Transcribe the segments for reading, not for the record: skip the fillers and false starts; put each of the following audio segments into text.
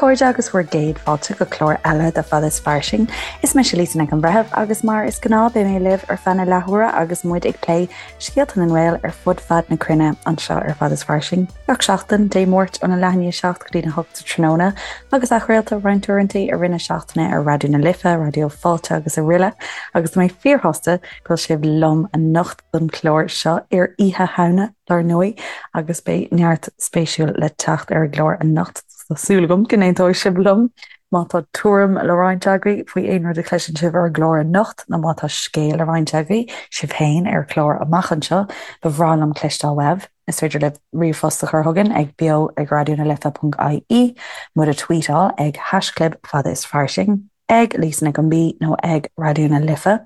chairde agus bhur gcéad fáilte go clár eile de Fada is Fairsing. Is mise Lisa Nic an Bhreithimh agus mar is gnáth beidh mé libh ar feadh na leathuaire agus muid ag plé scéalta na nGael ar fud fad na cruinne anseo ar Fada is Fairsing. Gach seachtain, Dé Máirt óna leath i ndiaidh 7 go dtí na 8 sa tráthnóna agus athchraolta roinnt uaireanta i rith na seachtaine ar Raidió na Life, Raidió Fáilte agus araile agus tá mé fíorshásta go bhfuil sibh liom anocht don chlár seo ar Oíche Shamhna, dar ndóigh, agus beidh neart spéisiúil le teacht ar an gclár anocht, tá súil agam go n-aontóidh sibh liom. Má tá tuairim le roinnt agaibh faoi aon rud a chloiseann sibh ar an gclár anocht, nó má tá scéal le roinnt agaibh, sibh féin, ar chlár amach anseo, ba bhreá liom cloisteáil uaibh. Is féidir libh ríomhphost a chur chugainn ag beo ag raidionalife.ie, muid a tweetáil ag haischlib fada is fairsing. ag Lisa Nic an B nó ag Raidió na Life,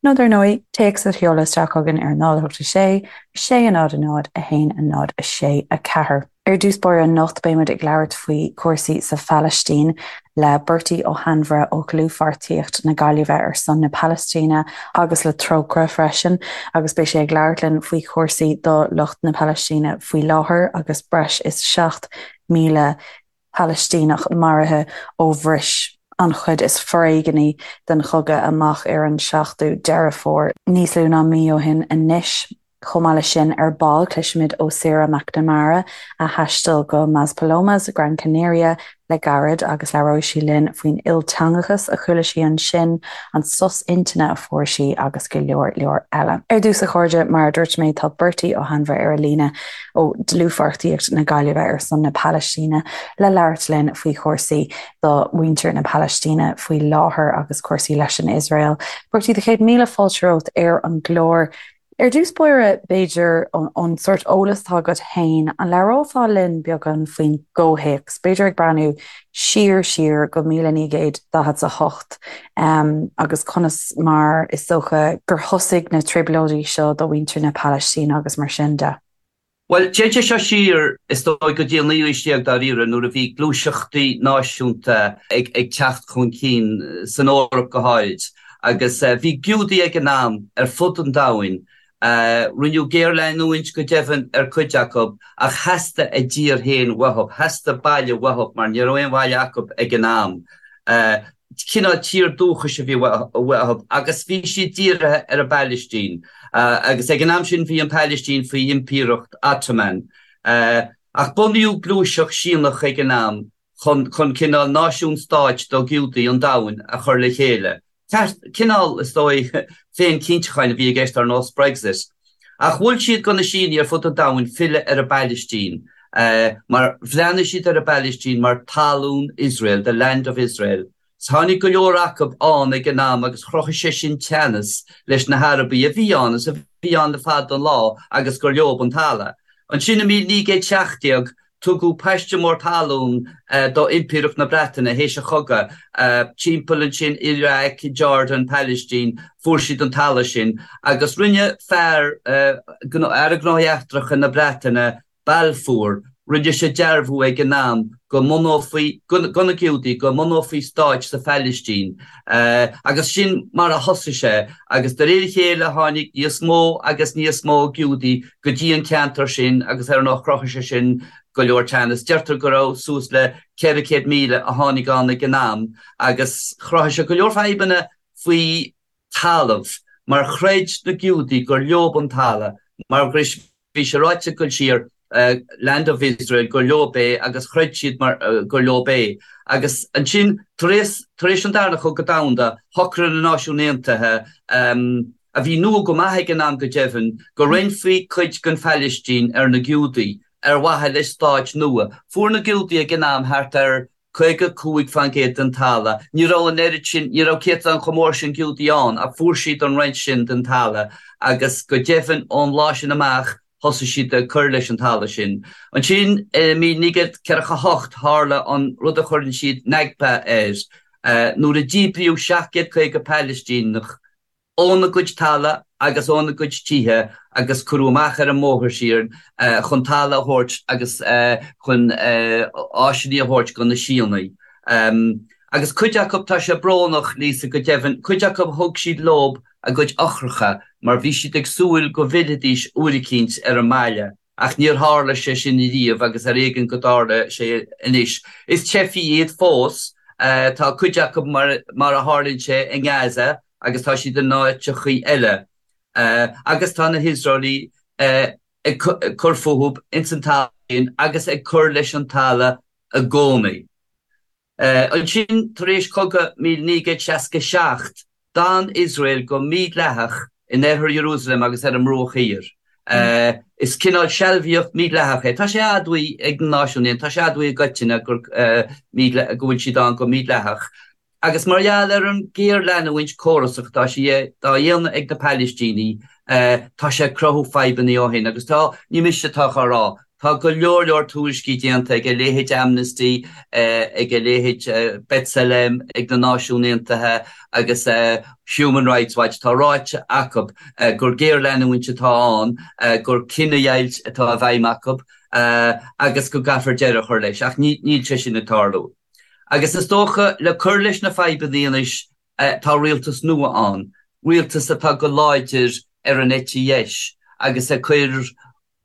nó dar ndóigh, téacs a sheoladh isteach chugainn ar 0 8 6 6 0 0 1 0 6 4. Ar dtús báire anocht beidh muid ag labhairt faoi chúrsaí sa Phalaistín le Bertie Ó hAinmhire ó Dhlúthpháirtíocht na Gaillimhe ar son na Palaistíne agus le Trócaire freisin agus beidh sé ag labhairt linn faoi chúrsaí do lucht na Palaistíne faoi láthair agus breis is 7,000 Palaistíneach maraithe ó bhris an chuid is foréigní den chogadh amach ar an 7ú Deireadh Fómhair, níos lú ná mí ó shin anois. Chomh maith leis sin, ar ball, cloisfimid ó Sarah McNamara, a thaistil go Maspalomas, Gran Canaria, le gairid agus labhróidh sí linn faoin ilteangachas a chuala sí ansin, an sos intinne a fuair sí agus go leor leor eile. Ar dtús, a chairde, mar a dúirt mé, tá Bertie Ó hAinmhire ar an líne. ó Dlúthpháirtíocht na Gaillimhe ar son na Palaistíne le labhairt linn faoi chúrsaí do mhuintir na Palaistíne faoi láthair agus cúrsaí leis an Iosrael. Bertie, do chéad míle fáilte romhat ar an gclár. Ar dtús báire, b'fhéidir, ón sórt eolas atá agat féin, an labhrófá linn beagán faoin gcomhthéacs, b'fhéidir ag breathnú siar siar go 1948 agus conas mar is dócha gur thosaigh na trioblóidí seo do mhuintir na Palaistíne agus mar sin de. Bhuel, téann sé seo siar, is dóigh, go dtí an naoú haois déag dáiríre, nuair a bhí gluaiseachtaí náisiúnta ag teacht chun cinn, san Eoraip go háirid, agus bhí Giúdaigh ag an am ar fud an domhain Rinneadh géarleanúint go deimhin ar cuid acu ach theastaigh a dtír féin uathu, theastaigh baile uathu mar ní raibh aon bhaile acu ag an am. Cineál tír dúchais a bhí uathu agus bhí siad dírithe ar an bPailistín agus ag an am sin bhí an Phailistín faoi Impireacht Ottoman. Ach bunaíodh gluaiseacht Síónach ag an am chun cineál náisiún stáit do Ghiúdaigh an domhain a chur le chéile. Cineál, is dóigh, féin-chinntiúcháin a bhí i gceist ar nós Brexit. Ach mhol siad do na Síónaigh ar fud an domhain filleadh ar an bPailistín, mar bhreathnaigh siad ar an bPailistín mar talún Iosrael, the land of Israel. Tháinig go leor acu ann ag an am agus chruthaigh sé sin teannas leis na hArabaigh a bhí ann is a bhí ann le fada an lá agus gur leob an talamh. Ansin i 1917 Tugadh paiste mór talún do Impireacht na Breataine théis an chogaidh, timpeall ansin, Iraq, Jordan, Pailistín, fuair siad an talamh sin agus rinne fear, Aire Gnóthaí Eachtracha na Breataine, Balfour, rinne sé dearbhú ag an am go mbunófaí, do na Giúdaigh, go mbunófaí stáit sa Phailistín agus sin mar a thosaigh sé agus de réir a chéile tháinig níos mó agus níos mó Giúdaigh go dtí an ceantar sin agus ar ndóigh chruthaigh sé sin go leor teannas. Deirtear go raibh suas le 400,000 a tháinig ann ag an am agus chruthaigh sé go leor fadhbanna faoi talamh mar chreid na Giúdaigh gur leob an talamh mar bhí sé ráite ag dul siar Land of Israel gur leob é agus chreid siad mar gur leob é agus ansin tar éis tar éis an Darna Cogadh Domhanda shocraigh na Náisiúin Aontaithe a bhí nua go maith ag an am go deimhin, go roinnfí cuid den Phailistín ar na Giúdaigh ar mhaithe le stáit nua. Fuair na Giúdaigh ag an am thart ar 55% den talamh. Ní raibh an oiread sin, ní raibh céatadán chomh mór sin Giúdaigh ann ach fuair siad an roinnt sin den talamh agus go deimhin ón lá sin amach thosaigh siad ag cur leis an talamh sin. Ansin i 1948 tharla an rud a chuireann siad Nakba air, nuair a díbríodh 750 Pailistíneach óna gcuid talamh agus óna gcuid tithe agus cuireadh amach ar an mbóthar siar chun talamh a thabhairt agus chun áiseanna a thabhairt do na Síónaigh. Agus cuid acu, tá sé brónach, Lisa, go deimhin, cuid acu thug siad leob a gcuid eochracha mar bhí siad ag súil go bhfillfidís uair eicínt ar an mbaile. Ach níor tharla sé sin riamh agus ar éigean go dtarla sé anois. Is teifigh iad fós. Tá cuid acu mar a tharlaíonn sé i nGaza agus tá siad in áiteachaí eile. Agus tá na hIosraelaigh ag cur fúthu ins an talamh sin agus ag cur leis an talamh i gcónaí. Ansin, tar éis cogadh 1967, d'fhan Iosrael go mídhleathach in oirthear Iarúsailéim agus ar an mBruach Thiar. Is cineál sealbhaíocht mhídhleathach é. Tá sé admhaithe ag na Náisiúin Aontaithe, tá sé admhaithe i gcoitinne go bhfuil siad ann go mídhleathach. Agus mar gheall ar an ghéarleanúint córasach atá sí dá dhéanamh ag na Palaistínigh, tá sé ag cruthú fadhbanna ó shin. Agus tá, ní mise atá á rá, tá go leor leor tuairiscí déanta ag a leithéid Amnesty, ag a leithéid B'Tselem, ag na Náisiúin Aontaithe agus Human Rights Watch, tá ráite acu gur géarleanúint atá ann, gur cinedheighilt atá i bhfeidhm acu agus go gcaithfear deireadh a chur leis. Ach níl sé sin ag tarlú. Agus is dócha, le cur leis na fadhbanna anois, tá rialtas nua ann, rialtas atá go láidir ar an eite dheis agus ag cur,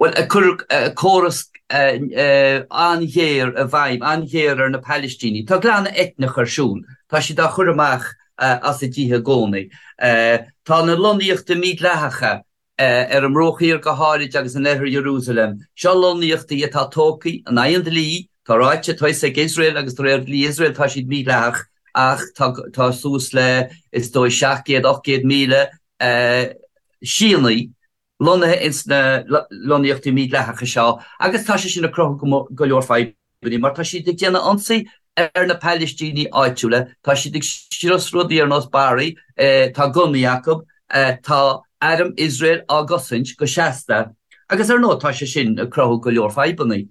bhuel, ag cur córas an-ghéar i bhfeidhm, an-ghéar ar na Palaistínigh. Tá glanadh eitneach ar siúl, tá siad á chur amach as a dtithe i gcónaí. Tá na lonnaíochtaí mídhleathacha ar an mBruach Thiar go háirid agus in oirthear Iarúsailéim. Seo lonnaíochtaí atá tógtha in aghaidh an dlí, tá ráite, tá fhios ag Iosrael agus de réir dhlí Iosrael tá siad mídhleathach ach tá tá suas le is dóigh 700, 800,000 Síónaigh lonnaithe ins na lonnaíochtaí mídhleathacha seo agus tá sé sin ag cruthú go leor fadhbanna. mar tá siad ag déanamh ionsaí ar na Palaistínigh áitiúla, tá siad ag scrios rudaí ar nós barraí, tá gunnaí acu, tá arm Iosrael á gcosaint go seasta agus ar ndóigh tá sé sin ag cruthú go leor fadhbanna.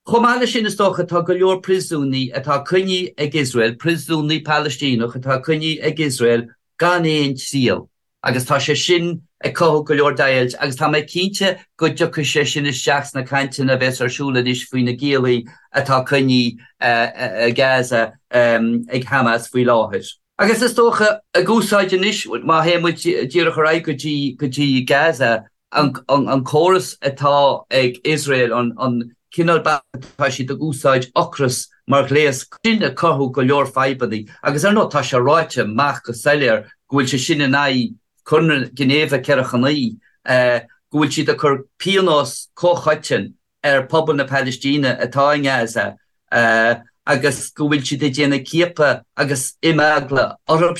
Chomh maith leis sin is dócha tá go leor príosúnaigh atá coinnithe ag Iosrael, príosúnaigh Palaistíneach atá coinnithe ag Iosrael gan aon triail. Agus tá sé sin ag cothú go leor deighilt agus tá mé cinnte go dtiocfaidh sé sin isteach sna cainteanna a bheas ar siúl anois faoi na giallaí atá coinnithe i Gaza ag Hamas faoi láthair. Agus is dócha, ag úsáid anois, má théann muid díreach ar aghaidh go dtí go dtí Gaza, an córas atá ag Iosrael, an cineál bealaigh atá siad ag úsáid ocras mar ghléas, sin ag cothú go leor fadhbanna agus ar ndóigh tá sé ráite amach go soiléir go bhfuil sé sin in aghaidh Conradh Ginéive 49, go bhfuil siad ag cur pionós comhchoiteann ar phobal na Palaistíne atá i nGaza agus go bhfuil siad ag déanamh ciapadh agus imeagla orthu.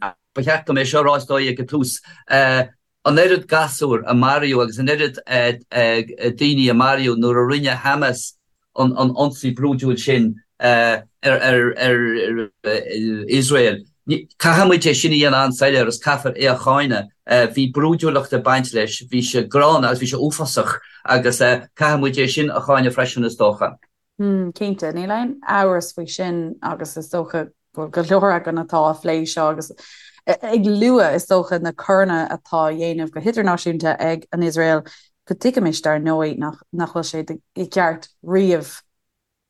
Ba cheart dom é seo a rá is dóigh ag an tús. An oiread gasúr a maraíodh agus an oiread daoine a maraíodh nuair a rinne Hamas an ionsaí brúidiúil sin ar Iosrael. Caithfidh muid é sin a dhéanamh an-soiléir agus caithfear é a cháineadh. Bhí brúidiúlacht ag baint leis, bhí sé gránna agus bhí sé uafásach agus caithfidh muid é sin a cháineadh freisin is dócha. Cinnte, níl aon amhras faoi sin agus is dócha go bhfuil go leor againn atá á phlé seo agus ag lua, is dócha, na coireanna atá á dhéanamh go hidirnáisiúnta ag an Iosrael, go dtuigimis, dar ndóigh, nach nach bhfuil sé i gceart riamh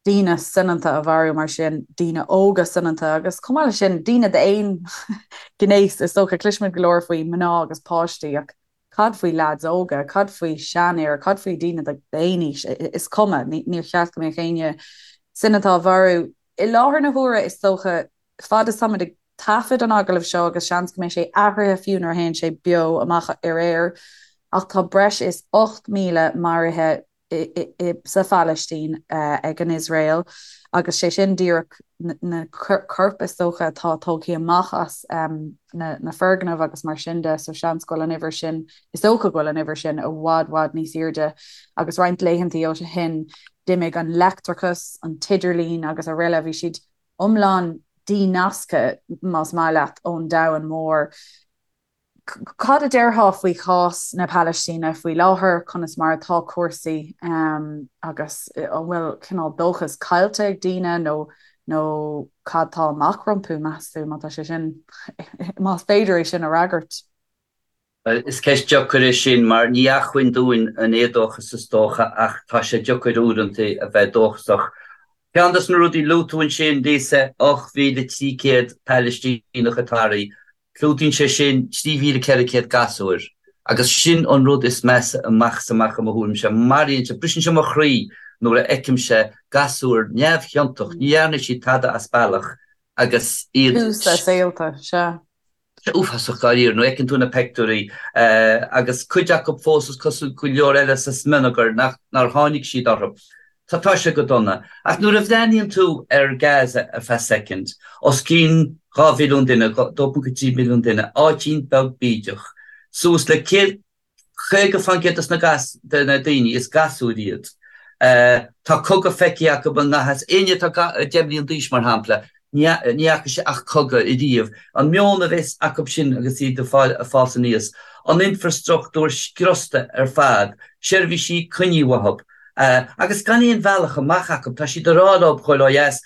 daoine soineanta a mharú mar sin, daoine óga soineanta agus chomh maith leis sin, daoine d'aon ghnéas, is dócha. Cloisimid go leor faoi mná agus páistí ach Cad faoi leaids óga? Cad faoi seanfhir? Cad faoi daoine d'aon aois? Is cuma, níor cheart go mbeadh éinne soineanta á mharú. I láthair na huaire, is dócha, fad is táimid ag taifead an agallaimh seo, agus seans go mbeidh sé athraithe fiú nuair a théann sé beo amach ar aer, ach tá breis is 8,000 maraithe sa Phalaistín ag an Iosrael agus sé sin díreach na coirp is dócha atá tógtha amach as na foirgnimh agus mar sin de, so seans go bhfuil an uimhir sin, is dócha go bhfuil an uimhir sin i bhfad bhfad níos airde agus roinnt laethantaí ó shin d'imigh an leictreachas, an t-idirlíon agus araile, bhí siad iomlán dínasctha más maith leat ón domhan mór. Cad a déarfá faoi chás na Palaistíne faoi láthair, conas mar atá cúrsaí agus an bhfuil cineál dóchas caillte ag daoine nó nó cad tá amach rompu, meas tú, má tá sé sin, más féidir é sin a fhreagairt? Bhuel, is ceist deacair é sin mar ní acmhainn dúinn an éadóchas is dócha ach tá sé deacair uaireanta a bheith dóchasach. Ceann de na rudaí a luaigh tú ansin, Lisa, 8,300 Palaistíneach atá maraithe. Clúdaíonn sé sin 3,400 gasúr. Agus sin an rud is measa amach is amach i mo thuairimse. Maraíonn sé, briseann sé mo chroí nuair a fheicimse gasúir neamhchiontach, ní dhearna siad tada as bealach agus iad. Tús a saolta, sea. Uafásach dáiríre nuair a fheiceann tú na peictiúirí agus cuid acu fós is cosúil go leor eile sa smionagar nach nár tháinig siad orthu. Tá tá sé go dona. Ach nuair a bhreathnaíonn tú ar Gaza ar feadh soicind, os cionn 2 mhilliún duine, 2.3 milliún duine, áitín beag bídeach, suas le 100, 50% de na gas, de na daoine, is gasúir iad. Tá cogadh feicthe acu i ngan fhios. Éinne atá 10 mbliain d'aois, mar shampla, ní fhaca sé ach cogadh ariamh. An meon a bheas acu sin agus iad ag fás aníos, an infreastruchtúr scriosta ar fad, seirbhísí coinnithe uathu, agus gan aon bhealach amach acu. Tá siad ag rá leo ghoil ó dheas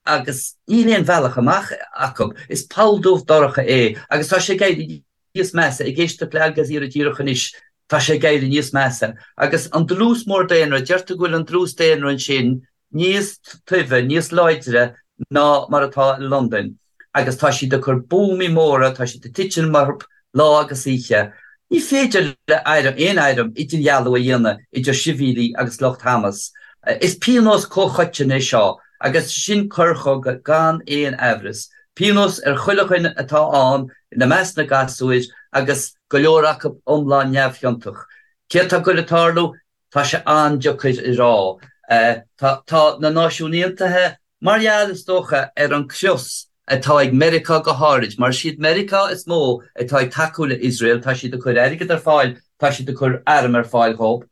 agus níl aon bhealach amach acu. Is poll dubh dorcha é agus tá sé ag éirí níos measa. Ag éisteacht le Al Jazeera díreach anois, tá sé ag éirí níos measa. Agus an dlús mór daonra, deirtear go bhfuil an dlús daonra ansin níos tibhe, níos láidre ná mar atá i Londain agus tá siad ag cur buamaí móra, tá siad ag titim orthu lá agus oíche. Ní féidir le aon airm idirdhealú a dhéanamh idir sibhialaigh agus lucht Hamas. Is pionós comhchoiteann é seo agus sin coir chogaidh gan aon aimhreas. Pionós ar chuile dhuine atá ann, ina measc na gasúir agus go leor acu iomlán neamhchiontach. Céard tá ag goil ag tarlú? Tá sé an-deacair a rá. Tá na Náisiúin Aontaithe, mar gheall, is dócha, ar an crios atá ag Meiriceá go háirid, mar is iad Meiriceá is mó atá ag tacú le Iosrael, tá siad ag cur airgead ar fáil, tá siad ag cur arm ar fáil dhóibh,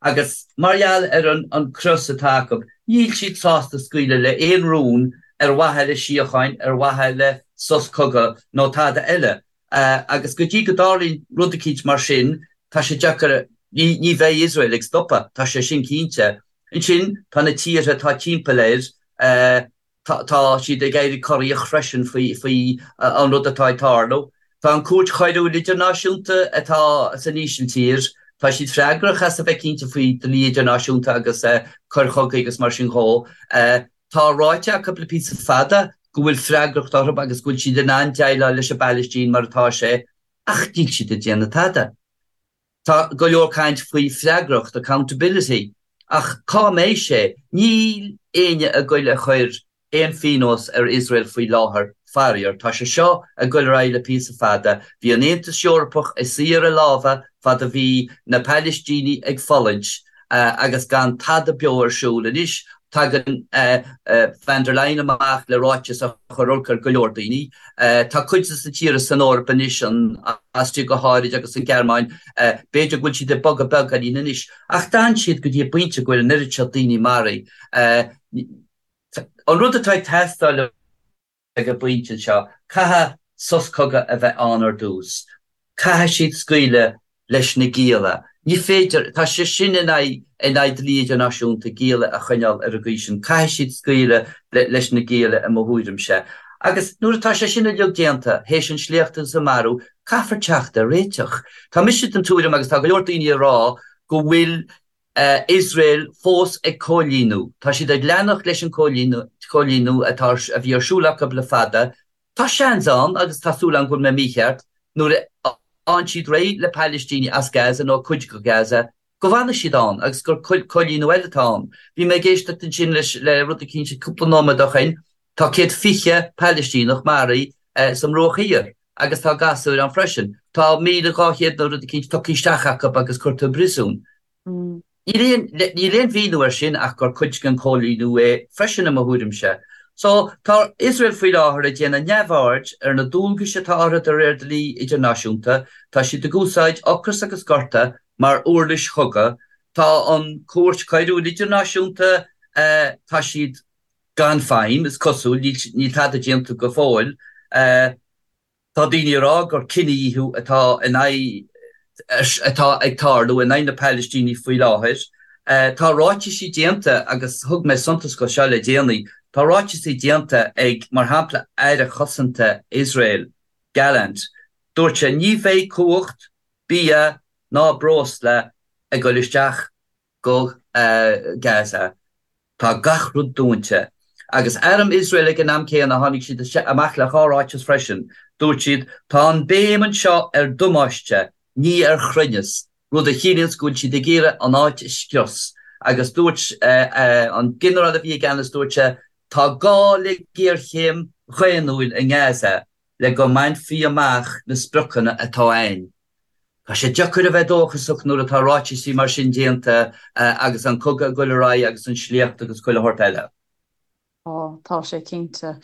agus mar gheall ar an crios atá acu, níl siad sásta scaoileadh le aon rún ar mhaithe le síocháin, ar mhaithe le sos cogaidh nó tada eile. Agus go dtí go dtarlaíonn rud eicínt mar sin, tá sé deacair, ní bheidh Iosrael ag stopadh, tá sé sin cinnte. Ansin, tá na tíortha atá timpeall air, tá siad ag éirí corraíoch freisin faoi an rud atá ag tarlú. Tá an Cúirt Choiriúil Idirnáisiúnta atá san Ísiltír, tá siad freagrach as a bheith cinnte faoi dlí idirnáisiúnta agus coir chogaidh agus mar sin dhó. Tá ráite acu le píosa fada go bhfuil freagracht orthu agus go bhfuil siad in ann déileáil leis an bPailistín mar atá sé, ach níl siad ag déanamh tada. Tá go leor caint faoi freagracht, accountability, ach cá mbeidh sé? Níl éinne ag goil a chur aon phionós ar Iosrael faoi láthair, faraor. Tá sé seo ag goil ar aghaidh le píosa fada. Bhí an Aontas Eorpach ag suí ar a lámha fad a bhí na Pailistínigh ag fulaingt agus gan tada beo ar siúl. Anois tagann Von der Leyen amach le ráiteas a chuir olc ar go leor daoine. Tá cuid de na tíortha san Eoraip anois, an Astria go háirid agus an Ghearmáin, b'fhéidir go bhfuil siad ag bogadh beagáinín anois, ach d'fhan siad go dtí an bpointe go bhfuil an oiread seo daoine maraithe. An rud atá ag teastáil ag an bpointe seo, caithfidh sos cogaidh a bheith ann ar dtús. Caithfidh siad scaoileadh leis na gialla. Ní féidir, tá sé sin in aghaidh in aghaidh dlí idirnáisiúnta, gialla a choinneáil ar an gcaoi sin. Caithfidh siad scaoileadh leis na gialla i mo thuairimse. Agus nuair atá sé sin uilig déanta, théis an sléacht agus an marú, caithfear teacht ar réiteach. Tá mise den tuairim, agus tá go leor daoine ag rá, go bhfuil Iosrael fós ag coilíniú. Tá siad ag leanacht leis an gcoilíniú atá a bhí ar siúl acu le fada. Tá seans ann, agus tá súil agam go bhfuil mé mícheart, nuair a fhaigheann siad réidh le Palaistínigh as Gaza nó cuid de Gaza, go bhfanfaidh siad ann agus gur coilíniú eile atá ann. Bhí mé ag éisteacht ansin leis le rud eicínt cúpla nóiméad ó shin, tá 120 Palaistíneach maraithe sa mBruach Thiar agus tá gasúir ann freisin. Tá 1,200 nó rud eicínt tugtha isteach acu agus curtha i bpríosún. Níl aon mhíniú air sin ach gur cuid den chóilíniú é freisin i mo thuairimse. So, tá Iosrael faoi láthair ag déanamh neamhaird ar na dualgais atá orthu de réir dlí idirnáisiúnta, tá siad ag úsáid ocras agus gorta mar uirlis chogaidh, tá an Cúirt Choiriúil Idirnáisiúnta, tá siad gan feidhm, is cosúil, níl tada déanta go fóill. Tá daoine ag rá gur cinedhíothú atá in aghaidh atá ag tarlú in aghaidh na Palaistínigh faoi láthair. Tá ráitisí déanta, agus thug mé suntas go seo le déanaí, tá ráitisí déanta ag, mar shampla, Aire Cosanta Iosrael, Gallant. Dúirt sé, ní bheidh cumhacht, bia ná breosla ag dul isteach go Gaza. Tá gach rud dúnta. Agus arm Iosrael ag an am céanna, tháinig siad amach le dhá ráiteas freisin. Dúirt siad, Tá an béim anseo ar damáiste. ní ar chruinneas, rud a chiallaíonns go bhfuil siad ag iarraidh an áit a scrios. Agus dúirt an ginearál a bhí i gceannas, dúirt sé, tá gá le géarchéim dhaonnúil i nGaza le go mbainfí amach na spriocanna atá a'inn. Tá sé deacair a bheith dóchasach nuair atá ráitisí mar sin déanta agus an cogadh ag dul ar aghaidh agus an sléacht agus chuile shórt eile. Tá, tá sé cinnte.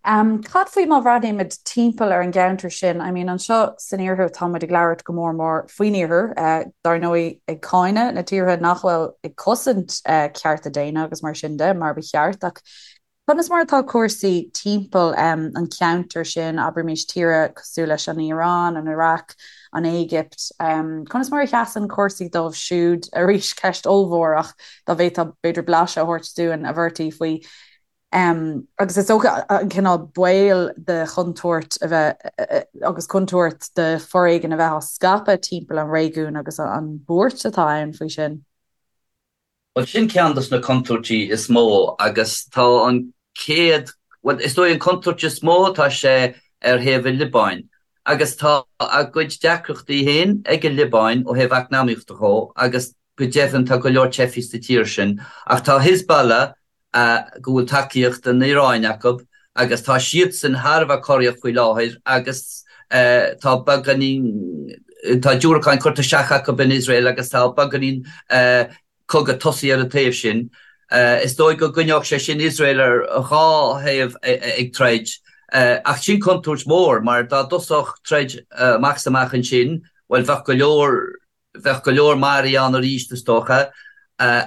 Cad faoi má bhreathnaímid timpeall ar an gceantar sin? I mean, anseo san iarthar tá muid ag labhairt go mór mór faoin iarthar, dar ndóigh ag cáineadh na tíortha nach bhfuil ag cosaint cearta daonna agus mar sin de, mar ba cheart, ach conas mar atá cúrsaí timpeall an cheantair sin, abraimis tíortha cosúil leis an Iaráin, an Iaráic, an Éigipt, conas mar a sheasann cúrsaí dóibh siúd? Arís, ceist ollmhór ach dá bhféadfá b'fhéidir blaiseadh a thabhairt dúinn, a Bhertie, faoi. Agus is dócha an cineál baol de chontúirt a bheith agus contúirt de foréigean a bheith á scaipeadh timpeall an réigiúin agus an bhuairt atá ann faoi sin. Bhuel, sin ceann dos na contúirtí is mó agus tá an chéad, bhuel, is dóigh an contúirt is mó, tá sé ar thaobh an Liobáin agus tá a gcuid deacrachtaí féin ag an Liobáin ó thaobh eacnamaíochta dhó agus go deimhin tá go leor teifigh sa tír sin ach tá Hezbollah go bhfuil tacaíocht an Iaráin acu agus tá siadsan thar a bheith corraíoch faoi láthair agus tá beagáinín, tá diúracáin curtha isteach acu in Iosrael agus tá beagáinín cogadh tosaithe ar an taobh sin. Is dóigh go gcoinneodh sé sin Iosrael ar dhá thaobh ag troid ach sin contúirt mhór mar dá dtosódh troid amach is amach ansin, bhuel bheadh go leor Bheadh go leor maraithe ann arís, is dócha.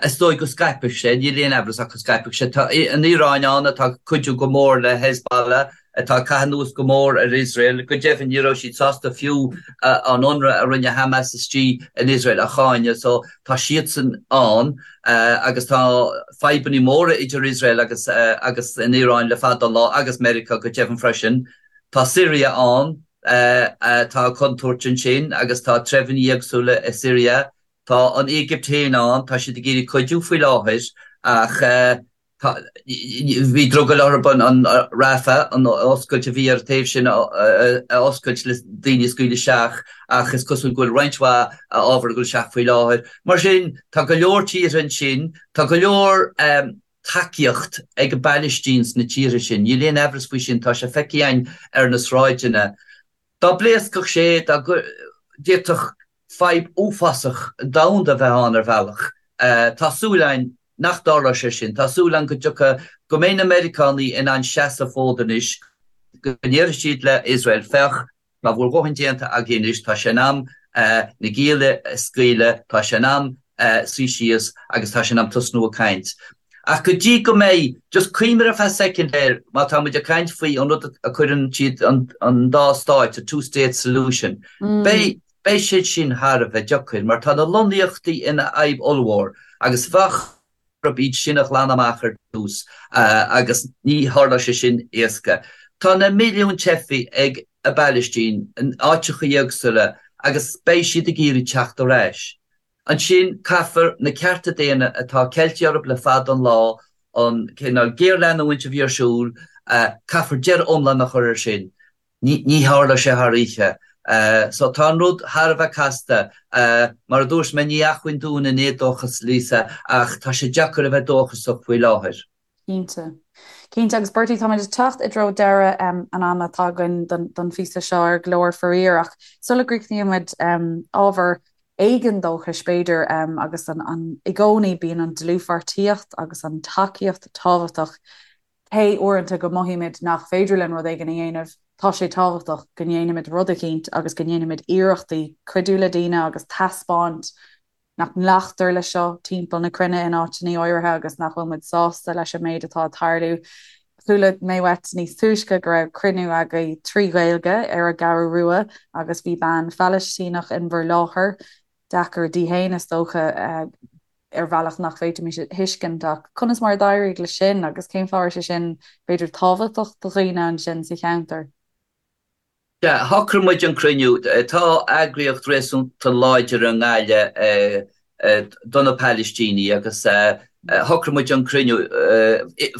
Is dóigh go scaipfeadh sé, níl aon amhras ach go scaipfeadh sé. Tá an Iaráin ann atá ag cuidiú go mór le Hezbollah, atá ag caitheamh anuas go mór ar Iosrael. Go deimhin, ní raibh siad sásta fiú an ionradh a rinne Hamas istigh in Iosrael a cháineadh. So tá siadsan ann agus tá fadhbanna móra idir Iosrael agus agus an Iaráin le fada an lá agus Meiriceá go deimhin freisin. Tá Siria ann. Tá contúirt ansin agus tá treibheanna éagsúla i Siria. Tá an Éigipt féin ann, tá siad ag iarraidh cuidiú faoi láthair ach tá, bhí drogall orthu an Rafah, an oscailt a bhí ar an taobh sin a oscailt le daoine a scaoileadh isteach ach is cosúil go bhfuil roinnt mhaith ábhar ag dul isteach faoi láthair. Mar sin, tá go leor tíortha ansin, tá go leor tacaíocht ag an bPailistín sna tíortha sin. Níl aon aimhreas faoi sin, tá sé feicthe againn ar na sráideanna. Dá bpléascfadh sé, dá d'fhéadfadh fadhb uafásach domhanda a bheith ann ar bhealach. Tá súil againn nach dtarlóidh sé sin. Tá súil againn go dtiocfaidh, go mbeidh na Meiriceánaigh in ann seasamh fód anois, go ndéarfaidh siad le Iosrael, féach, Tá bhur dhóthain déanta agaibh anois, tá sé in am na gialla a scaoileadh, tá sé in am suí síos agus tá sé in am tosnú ag caint. Ach go dtí go mbeidh, just cuimhnigh ar feadh soicind air, má tá muid ag caint faoi an rud a cuireann siad an dá stáit, a two state solution, beidh, beidh sé sin thar a bheith deacair mar tá na lonnaíochtaí ina fhadhb ollmhór agus bheadh, orthu iad sin a ghlanadh amach ar dtús agus ní tharlóidh sé sin éasca. Tá na milliúin teifigh ag an bPailistín in áiteacha éagsúla agus beidh siad ag iarraidh teacht ar ais. Ansin caithfear na cearta daonna atá ceilte orthu le fada an lá, an cineál géarleanúint a bhí ar siúl, caithfear deireadh iomlán a chur air sin. Ní tharlóidh sé thar oíche. So tá an rud thar a bheith casta. Mar a dúirt mé, ní acmhainn dúinn an éadóchas, Lisa, ach tá sé deacair a bheith dóchasach faoi láthair. Cinnte. Cinnte. Agus Bertie, táimid ag teacht i dtreo deireadh an ama atá againn don phíosa seo ar Glór, faraor, ach sula gcríochnaímid, ábhar éigin dóchais, b'fhéidir, agus an i gcónaí bíonn an dlúthpháirtíocht agus an tacaíocht tábhachtach. Cé uaireanta go mothaímid nach féidir linn rud éigin a dhéanamh, tá sé tábhachtach go ndéanfaimid rud eicínt agus go ndéanfaimid iarrachtaí cuidiú le daoine agus taispeáint nach nglactar leis seo timpeall na cruinne in áiteanna áirithe agus nach bhfuil muid sásta leis an méid atá ag tarlú. Chuala mé uait níos túisce go raibh cruinniú agaibh trí Ghaeilge ar an gCeathrú Rua agus bhí bean Phalaistíneach in bhur láthair. Deacair di féin, is dócha. ar bhealach nach bhféadfaimis a thuiscint, ach conas mar a d'éirigh leis sin agus cén fáth a raibh sé sin, b'fhéidir, tábhachtach do dhaoine ansin sa cheantar? Sea, shocraigh muid an cruinniú. Tá eagraíocht réasúnta láidir i nGaillimh do na Palaistínigh agus. Shocraigh muid an cruinniú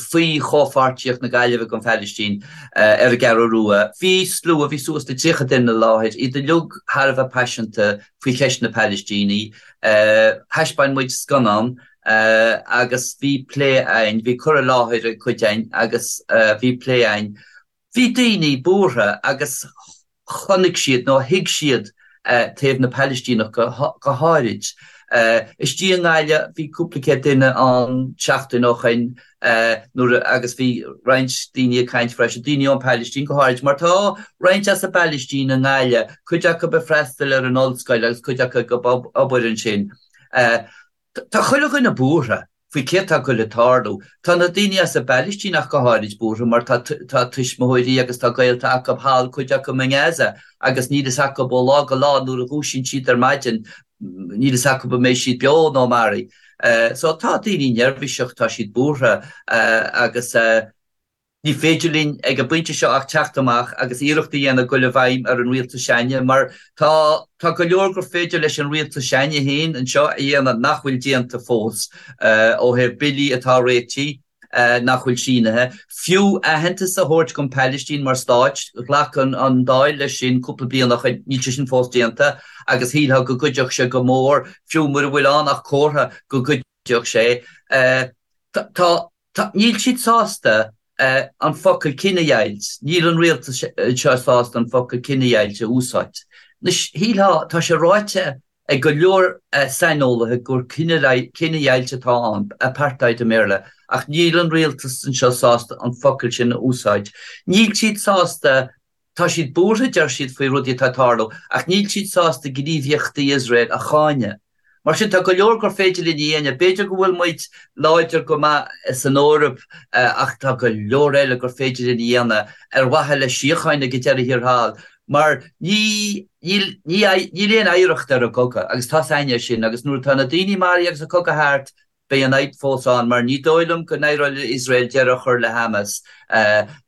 faoi chomhpháirtíocht na Gaillimhe don Phalaistín ar an gCeathrú Rua. Bhí slua, bhí suas le 30 duine i láthair, iad uilig thar a bheith paiseanta faoi cheist na Palaistíní. Thaispeáin muid scannán agus bhí plé againn, bhí cur i láthair ag cuid againn agus bhí plé againn. Bhí daoine buartha agus chonaic siad nó thuig siad taobh na Palaistíneach go háirid. Istigh i nGaillimh bhí cúpla céad duine ann seachtain ó shoin nuair agus bhí roinnt daoine ag caint freisin, daoine ón Phalaistín go háirid mar tá roinnt as an bPalaistín i nGaillimh, cuid acu ag freastal ar an ollscoil agus cuid acu ag obair ansin. Tá chuile dhuine buartha faoi céard tá ag goil ag tarlú. Tá na daoine as an bPalaistín ach go háirid buartha mar tá tá tuismitheoirí agus tá gaolta acu thall, cuid acu i nGaza agus níl fhios acu ó lá go lá nuair a dhúisíonn siad ar maidin níl fhios acu an mbeidh siad beo nó maraithe. So tá daoine neirbhíseach, tá siad buartha agus. Ní féidir linn ag an bpointe seo ach teacht amach agus iarracht a dhéanamh goil i bhfeidhm ar an rialtas s'againne mar tá tá go leor gur féidir leis an rialtas s'againne féin anseo a dhéanamh nach bhfuil déanta fós ó thaobh billí atá réitithe nach bhfuil sínithe. Fiú aitheantas a thabhairt don Phalaistín mar stáit, ghlac an Dáil leis sin cúpla bliain ó shoin, níl sé sin fós déanta agus shílfeá go gcuideodh sé go mór, fiú mura bhfuil ann ach comhartha go gcuideodh sé. Tá Tá, níl siad sásta an focal cinedheighilt, níl an rialtas seo sásta an focal cinedheighilt a úsáid. Anois, shílfeá, tá sé ráite ag go leor saineolaithe gur cinedheighilt atá ann, apartheid i mBéarla, ach níl an rialtas anseo sásta an focal sin a úsáid. Níl siad sásta Tá siad buartha, deir siad, faoi rudaí atá ag tarlú, ach níl siad sásta gníomhaíochtaí Iosrael a cháineadh. Mar sin, tá go leor gur féidir linn a dhéanamh. B'fhéidir go bhfuil muid láidir go maith san Eoraip ach tá go leor eile gur féidir linn a dhéanamh ar mhaithe le síocháin ag an deireadh thiar thall mar ní níl ní níl aon oidhreacht ar an gcogadh agus tá's a'inne sin agus nuair atá na daoine maraithe agus an cogadh thart Beidh an fhadhb fós ann mar ní dóigh liom go n-éireoidh le Iosrael deireadh a chur le Hamas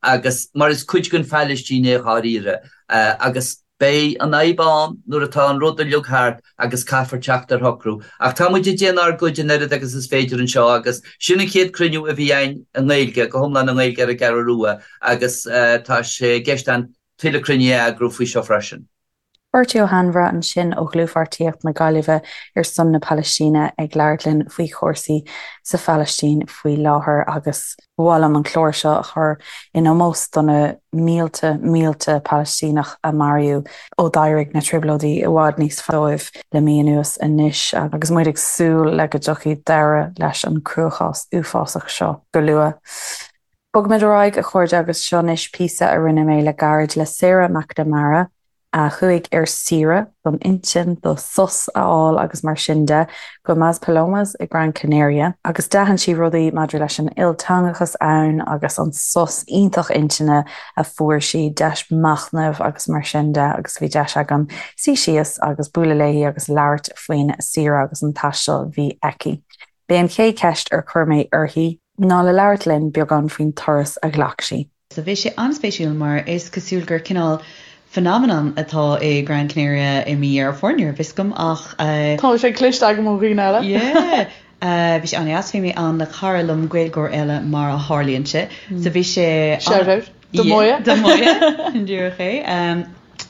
agus mar is cuid den Phalaistín é dháiríre agus beidh an fhadhb ann nuair atá an rud uilig thart agus caithfear teacht ar shocrú. Ach tá muid ag déanamh ár gcuid an oiread agus is féidir anseo agus sin an chéad cruinniú a bhí againn i nGaeilge, go hiomlán i nGaeilge ar an gCeathrú Rua agus tá sé i gceist againn tuilleadh cruinnithe a eagrú faoi seo freisin. Bertie Ó hAinmhire ansin ó Dhlúthpháirtíocht na Gaillimhe ar son na Palaistíne ag labhairt linn faoi chúrsaí sa Phalaistín faoi láthair agus ba mhaith liom an clár seo a chur in ómós do na mílte mílte Palaistíneach a maraíodh ó d'éirigh na trioblóidí i bhfad níos faide dóibh le mí anuas anois agus muid ag súil le go dtiocfaidh deireadh leis an cruachás uafásach seo go luath. Bogfaimid ar aghaidh, a chairde, agus seo anois píosa a rinne mé le gairid le Sarah McNamara, a chuaigh ar saoire don intinn, do sos a fháil agus mar sin de, go Maspalomas i Gran Canaria, agus d'aithin sí rudaí maidir leis an ilteangachas ann agus an sos iontach intinne a fuair sí, deis machnaimh agus mar sin de, agus bhí deis agam suí síos agus bualadh léi agus labhairt faoin saoire agus an taisteal a bhí aici. B'é an chéad cheist ar chuir mé uirthi ná le labhairt linn beagán faoin turas a ghlac sí. So bhí sé an-spéisiúil mar is cosúil gur cineál phenomenon atá i Gran Canaria i mí Dheireadh Fómhair, ní raibh fhios agam ach. Tá sé cloiste agam ó dhaoine eile. Yeah! Bhí sé an-deas, bhí mé ann le cara liom, Gaeilgeoir eile mar a tharlaíonn sé. So bhí sé. Shout out do Moya. Do Moya, díreach é.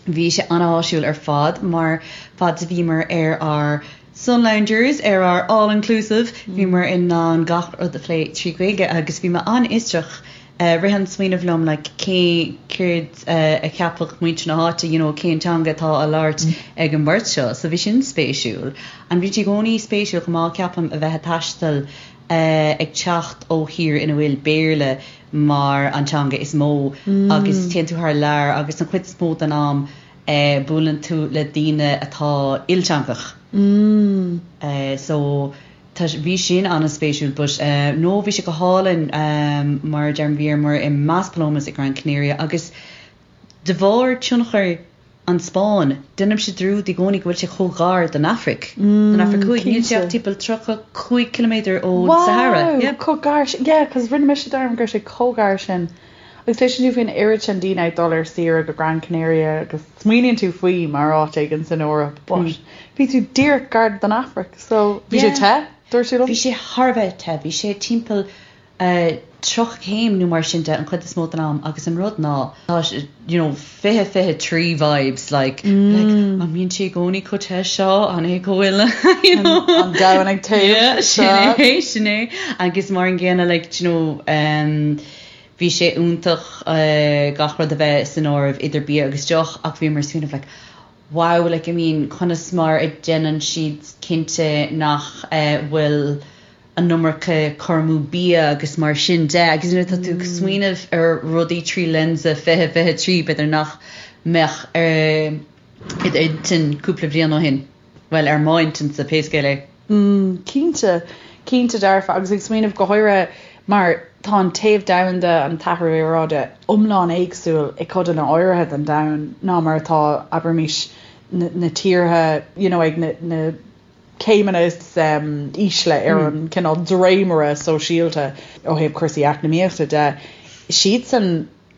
Bhí sé an-áisiúil ar fad mar fad is a bhíomar ar ár sun loungers, ar ár all inclusive, bhíomar in ann gach rud a phlé trí Ghaeilge agus bhí mé an-fhiosrach. Rith an smaoineamh liom like cé, céard a cheapfadh muintir na háite, you know cén teanga atá á labhairt ag an mbeirt seo. So bhí sin spéisiúil. And bhí sé i gcónaí spéisiúil chomh maith ceapaim a bheith ag taisteal ag teacht ó thír ina bhfuil Béarla mar an teanga is mó agus téann tú thar lear agus an chuid is mó den am buaileann tú le daoine atá ilteangach. So tá, bhí sin an-spéisiúil but no bhí sé go hálainn mar a deirim bhíomar i Maspalomas i Gran Canaria agus de bharr tionchar an Spáinn, déanaimse dearúd i gcónaí go bhfuil sé chomh gar don Afraic, don Afraic Thuaidh. Níl sé ach timpeall 35 ciliméadar ón Sahara. Wow! Chomh gar sin. Yeah, 'cause rinne mise dearmad go raibh sé chomh gar sin. Agus cloiseann tú faoin oiread sin daoine ag dul ar saoire go Gran Canaria agus smaoiníonn tú faoi mar áit éigin san Eoraip but bhí tú díreach gar don Afraic so bhí sé te? Dúirt tú liom? Bhí sé thar a bheith te, bhí sé timpeall 30 céim nó mar sin de an chuid is mó den am agus an rud ná tá you know 20 23 vibes like like an mbíonn sé i gcónaí chomh te seo an é go bhfuil you know An domhan ag téamh yeah sin é sin é agus mar an gcéanna like you know um, bhí sé iontach uh, gach rud a bheith san áireamh idir bia agus deoch ach bhíomar ag smaoineamh like wow like I mean conas mar a déanann siad cinnte nach uh, bhfuil an iomarca cur amú bia agus mar sin de agus nuair atá tú ag smaoineamh ar rudaí trí lionsa 2023 b'fhéidir nach mbeadh ar i d'intinn cúpla bliain ó shin, bhuel ar m'intinnse pé scéal é. Mm, cinnte, cinnte dearfa agus ag smaoineamh go háirithe mar tá an téamh domhanda, an t-athrú aeráide iomlán éagsúil i codanna áirithe den domhan ná mar atá, abraimis, na tíortha you know ag na, na céimeanna is ísle ar an cineál dréimire sóisialta ó thaobh cúrsaí eacnamaíochta de, siadsan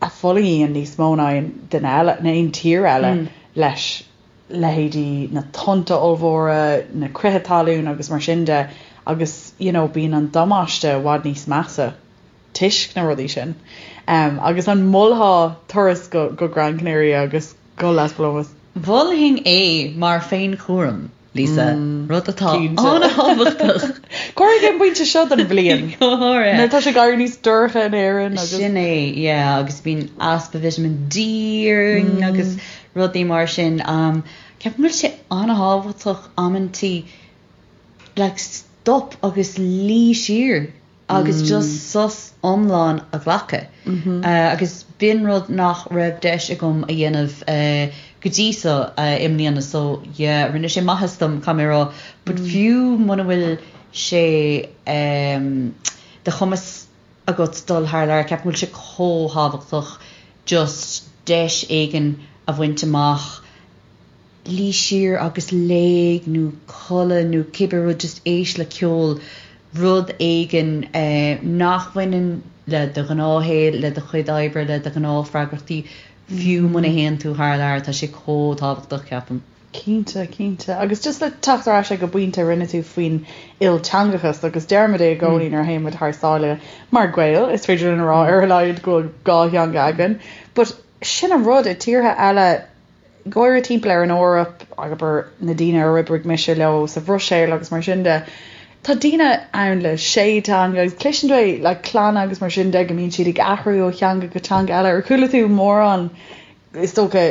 a fhulaingíonn níos mó ná aon duine eile, ná aon tír eile leis, leithéidí na tonnta ollmhóra, na crithe talún agus mar sin de agus you know bíonn an damáiste i bhfad níos measa toisc na rudaí sin. Agus an molfá turas go go Gran Canaria agus go Las Palomas? Mholfainn é mar féinchúram. Lisa, rud atá an-thábhachtach. Go háirithe ag an bpointe seo den bhliain. Go háirithe. Nuair atá sé ag éirí níos dorcha in Éirinn agus. Sin é, yeah, agus bíonn easpa vitamin D orainn agus rudaí mar sin. Ceapaim go bhfuil sé an-thábhachtach amantaí like stop agus luí siar. agus just sos iomlán a ghlacadh. Agus b'in rud nach raibh deis agam a dhéanamh go dtí so i mbliana so yeah rinne sé maitheas dom caithfidh mé a rá but fiú muna bhfuil sé de chumas agat dul thar lear ceapaim go bhfuil sé chomh thábhachtach just deis éigin a bhaint amach luí siar agus léigh nó codladh nó cibé rud, just éist le ceol, rud éigin nach bhaineann le do ghnáthshaol, le do chuid oibre, le do ghnáthfhreagrachtaí, fiú muna théann tú thar lear, tá sé chomh tábhachtach, ceapaim. Cinnte, cinnte. Agus just le teacht ar ais ag an bpointe a rinne tú faoin ilteangachas, agus deirimid é i gcónaí nuair a théann muid thar sáile mar Ghaeil, is féidir linn a rá ar a laghad go bhfuil dhá theanga againn, but sin an rud, i tíortha eile, go háirithe timpeall ar an Eoraip, abair na daoine ar oibrigh mise leo sa Bhruiséil agus mar sin de, tá daoine ann le sé teanga agus cloiseann tú é le clanna agus mar sin de go mbíonn siad ag athrú ó theanga go teanga eile. Ar chuala tú mórán, is dócha,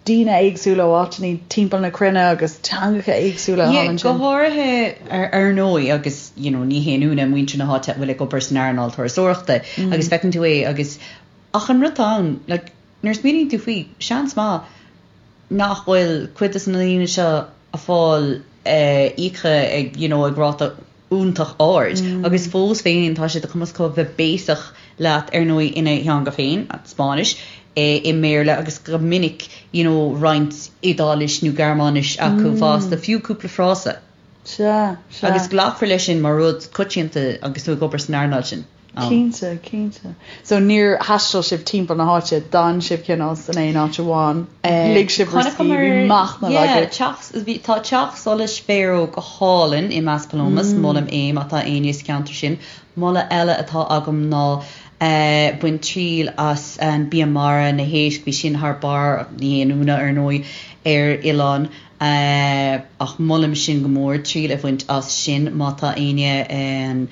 daoine éagsúla ó áiteanna timpeall na cruinne agus teangacha éagsúla thall ansin? Go háirithe ar ndóigh agus you know ní haon ionadh muintir na háite a bhfuil ag obair san earnáil turasóireachta agus feiceann tú é agus ach an rud atá ann like Nuair a smaoiníonn tú faoi, seans maith nach bhfuil cuid de na daoine seo ag fáil íoctha ag you know ag ráta iontach ard agus fós féin tá sé de chumas acu bheith béasach leat ar ndóigh ina theanga féin, an Spáinnis, i mBéarla agus go minic you know roinnt Iodáilis nó Gearmáinis acu fosta, fiú cúpla frása. Sea, sea. Agus glacfar leis sin mar rud coitianta agus tú ag obair san earnáil sin. ann. Cinnte, cinnte. So níor thaistil sibh timpeall na háite, d'fhan sibh cineál san aon áit amháin, lig sibh bhur scíth, bhí machnamh agaibh. Yeah, bhí, tá teach solais Faro go hálainn i Maspalomas, molaim é má tá éinne sa cheantar sin. Moladh eile atá agam ná bain triail as an bia mara, na héisc, bhí sin thar barr, ní haon ionadh ar ndóigh ar oileán, ach molaim sin go mór, triail a bhaint as sin má tá éinne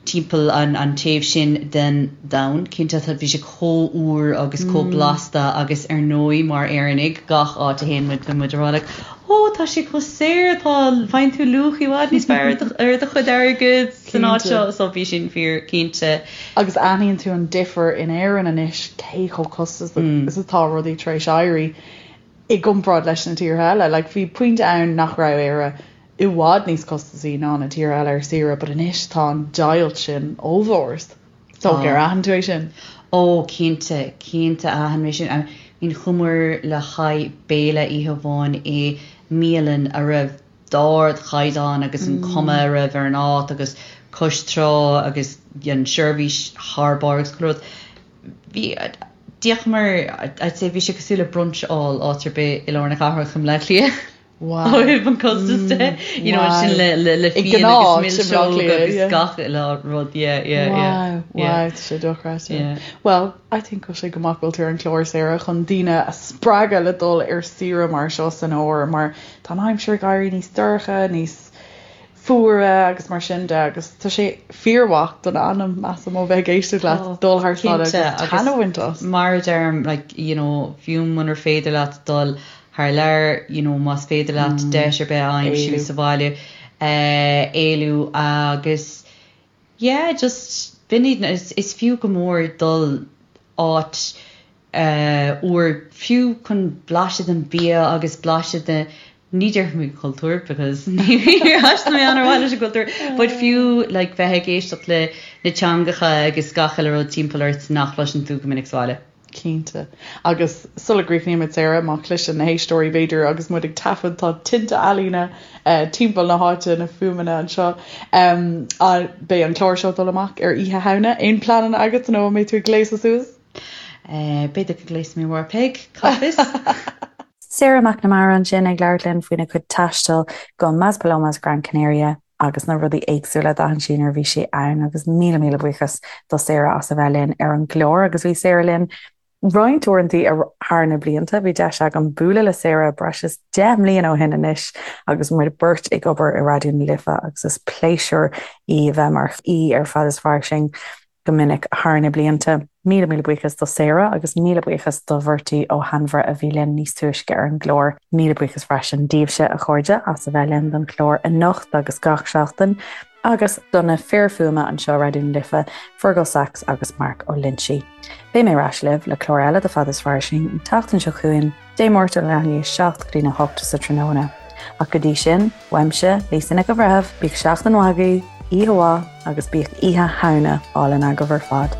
timpeall an taobh sin den domhan. Cinnte, bhí sé chomh úr agus chomh blasta agus ar ndóigh mar Éireannaigh, gach áit a théann muid, bíonn muid ag rá like oh tá sé chomh saor, tá, faigheann tú luach i bhfad níos fearr ar do chuid airgid san áit seo, so bhí sin fíor cinnte. Agus aithníonn tú an difear in Éirinn anois cé chomh costasach is atá rudaí tar éis éirí i gcomparáid leis na tíortha eile. Like bhí pointe ann nach raibh Éire i bhfad níos costasaí ná na tíortha eile ar saoire but anois tá an deighilt sin ollmhór. So ar aithin tú é sin? Ó cinnte, cinnte aithin mé sin. I mean chuamar le haghaidh béile oíche amháin i mbialann a raibh d'ardchaighdeán agus an cuma a raibh ar an áit agus cois trá agus an seirbhís thar barr agus chuile rud. Bhí, d'íocamar, I'd say bhí sé cosúil le brunch a fháil áit ar bith i lár na cathrach i mBleá Cliath. Wow. Ó thaobh an costas de, you know, sin le le le fíon agus milseog agus gach uile rud, yeah, yeah, yeah. Wow, wow, tá sé dochreidte. Yeah. Well, I think go bhfuil sé go maith go bhfuil tú ar an chlár, Sarah, chun daoine a spreagadh le dul ar saoire mar seo san fhómhar, mar tá an aimsir ag éirí níos dorcha, níos fuaire agus mar sin de agus tá sé fíormhaith don anam, measaim, ó bheith ag éisteacht leat, dul thar sáile agus taitneamh a bhaint as. Mar a deirim, like, you know, fiú munar féidir leat dul thar lear, you know, más féidir leat deis ar bith a aimsiú sa bhaile, éalú agus yeah, just b'in iad, is fiú go mór dul áit úr, fiú chun blaiseadh den bia agus blaiseadh de, ní déarfaidh mé cultúr because níor thaistil mé an-mhaith leis an gcultúr, but fiú like bheith ag éisteacht le na teangacha agus gach uile rud timpeall ort nach gcloiseann tú go minic sa bhaile. Cinnte. Agus sula gcríochnaímid, Sarah, má chloiseann na héisteoirí, b'fhéidir, agus muid ag taifead, tá tinte ealaíne timpeall na háite, na fuaimeanna anseo. Beidh an clár seo ag dul amach ar Oíche Shamhna. Aon pleananna agat nó an mbeidh tú ag gléasadh suas? B'fhéidir go ngléasfaidh mé amárach, Peig, cá bhfios? Sarah McNamara ansin ag labhairt linn faoina cuid taistil go Maspalomas Gran Canaria agus na rudaí éagsúla a d'aithin sí nuair a bhí sí ann agus míle míle buíochas do Sarah as a bheith linn ar an gclár agus bhí Sarah linn roinnt uaireanta thar na blianta. Bhí deis agam bualadh le Sarah breis is 10 mbliana ó shin anois agus muid beirt ag obair i Raidió na Life agus is pléisiúr í a bheith mar aoi ar Fad is Fairsing go minic thar na blianta. Míle míle buíochas do Sarah agus míle buíochas do Bhertie Ó hAinmhire a bhí linn níos túisce ar an gclár. Míle buíochas freisin daoibhse, a chairde, as a bheith linn don chlár anocht agus gach seachtain agus do na fir fuaime anseo Raidió na Life, Fergal Sachs agus Mark Ó Loinsigh. Beidh mé ar ais libh le clár eile de Fad is Fairsing an tseachtain seo chugainn. Dé Máirt ó leath i ndiaidh 7 go dtína 8 sa tráthnóna. Ach go dtí sin, uaimse, Lisa Nic an Bhreithimh, bíodh seachtain mhaith agaibh, oíche mhaith agus bíodh Oíche Shamhna álainn agaibh ar fad.